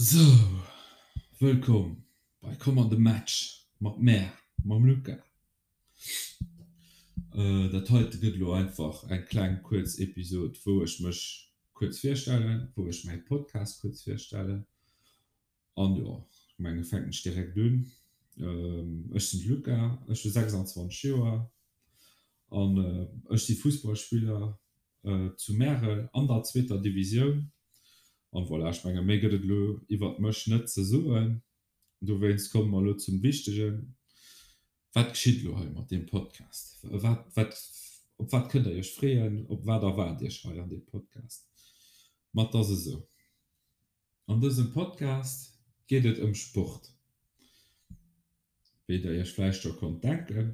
Sou, wëllkomm bei Komm an de Match mat mär, mam Luca. Dat heite gëtt elo einfach eng kleng kuerz Episod, wou ech mech kuerz virstellen, wou ech mäi Podcast kuerz virstellen. An jo, ech mengen fänken ech direkt un. Ech sinn de Luca, ech hu 26 Joer an ech si Fussballspiller zu Märel an der zweeter Divisioun. An voilà, ech menge méi gëtt et elo iwwert mech net ze soen. Dowéinst komme mer elo zum Wichtegen, Wat geschitt elo hei mat deem Podcast? Wat, wat, op wat kënnt der iech freeën? Op wat erwaart iech hei an deem Podcast? Ma et ass esou, An dësem Podcast geet et ëm Sport. Wéi der iech vläicht scho konnt denken.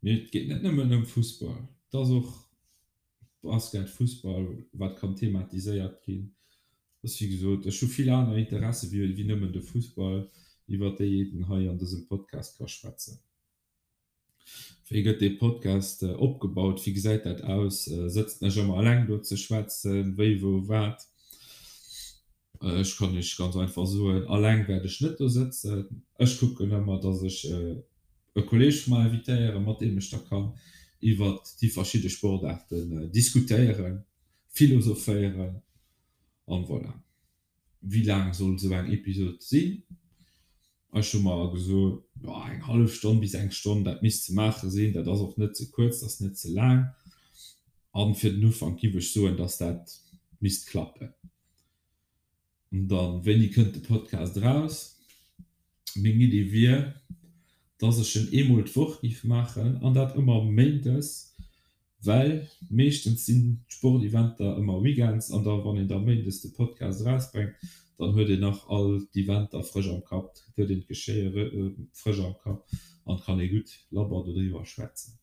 Mee et geet net nëmmen ëm Fussball, et ass och Basket, Fussball, wat kann thematiséiert ginn. Ass wéi gesot, ech hu vill aner Interesse wéi nëmmen de Fussball, iwwer déi een hei an dësem Podcast ka schwätzen. Wéi gëtt dee Podcast opgebaut? Wéi gesäit dat aus? Sëtzen ech ëmmer eleng do ze schwätzen? Wéi, wou, wat? Ech kann Iech ganz einfach soen, Alleng wäert ech net do sëtzen. Ech kucken ëmmer, dass ech e Kolleeg vu mer invitéieren, mat deem ech da kann iwwert déi verschidde Sportaarten diskutéieren, philosophéieren an voilà. Wéi laang soll esou eng Episod sinn? Ech hu mer gesot, jo eng hallef Stonn bis eng Stonn, dat misst ze maache sinn. Dat ass och net ze kuerz, dat ass net ze laang. An fir den Ufank giff ech soen, dass dat misst klappen. An dann, wéini kënnt de Podcast eraus? Meng Idee wier, dass ech en eemol d'Woch giff maachen, an dat ëmmer méindes, well meeschtens sinn d'Sporteventer ëmmer weekends, an da wann een da méindes de Podcast erausbrengt, dann huet een nach all d'Eventer frësch am Kapp, huet een d'Geschéie frësch am Kapp an kann ee gutt labber dodriwwer schwätzen.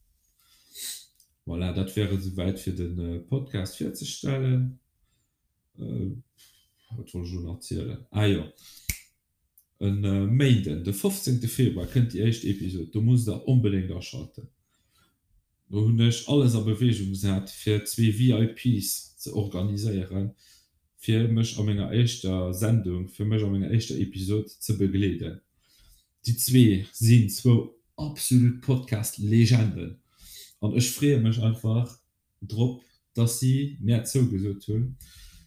Voilà, dat wär et esouwäit fir de Podcast virzestellen. Wat wollt ech elo nach zielen? Ah jo, e Méinden, de 15 Februar kënnt déi éischt Episod, do musst der onbedéngt aschalten. Do hunn ech alles a Beweegung gesat fir zwee VIPs ze organiséieren, fir mech a menger éischter Sendung, fir mech a menger éischter Episod ze begleeden. Déi zwee sinn zwou absolut Podcast-Legenden an ech freeë mech einfach drop, dass si mär zougesot hunn.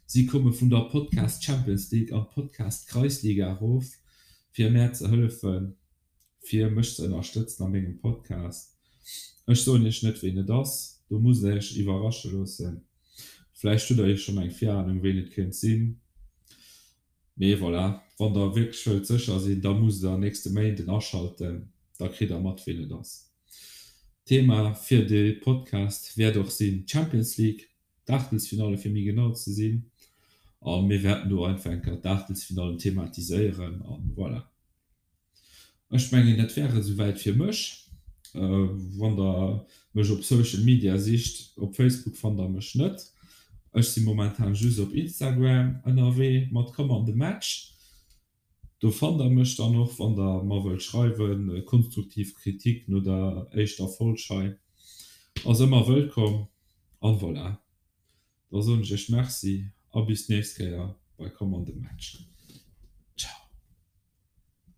Si komme vun der Podcast Champions League an d'Podcast Kreisliga erof, fir mär ze hëllefen, fir mech ze ënnerstëtzen a mengem Podcast. Ech soen iech net, ween et ass, do musst der iech iwwerrasche loossen. Vläicht hutt der jo schonn eng Virahnung, ween et kéint sinn. Mee voilà, wann der wierklech wëllt sécher sinn, da musst der nächste Méinden aschalten, da kritt der mat, ween et ass. Thema fir de Podcast wäert och sinn d'Champions League, d'Aachtelsfinalle fir méi genau ze sinn. A mir wäerten do einfach eng Kéier d'Aachtelsfinallen thematiséieren a voilà. Ech mengen dat wär et esouwäit fir mech. Wann der mech op Social Media sicht, op Facebook fannt der mech net. Ech si momentan just op Instagram ënnerwee mat Komm an de Match. Do fannt der mech dann och wann der mer wëllt schreiwen. Konstruktiv Kritik no der éischter Folg hei ass ëmmer wëllkomm. An voilà, da soen ech iech Merci a bis d'nächst Kéier bei Komm an de Match.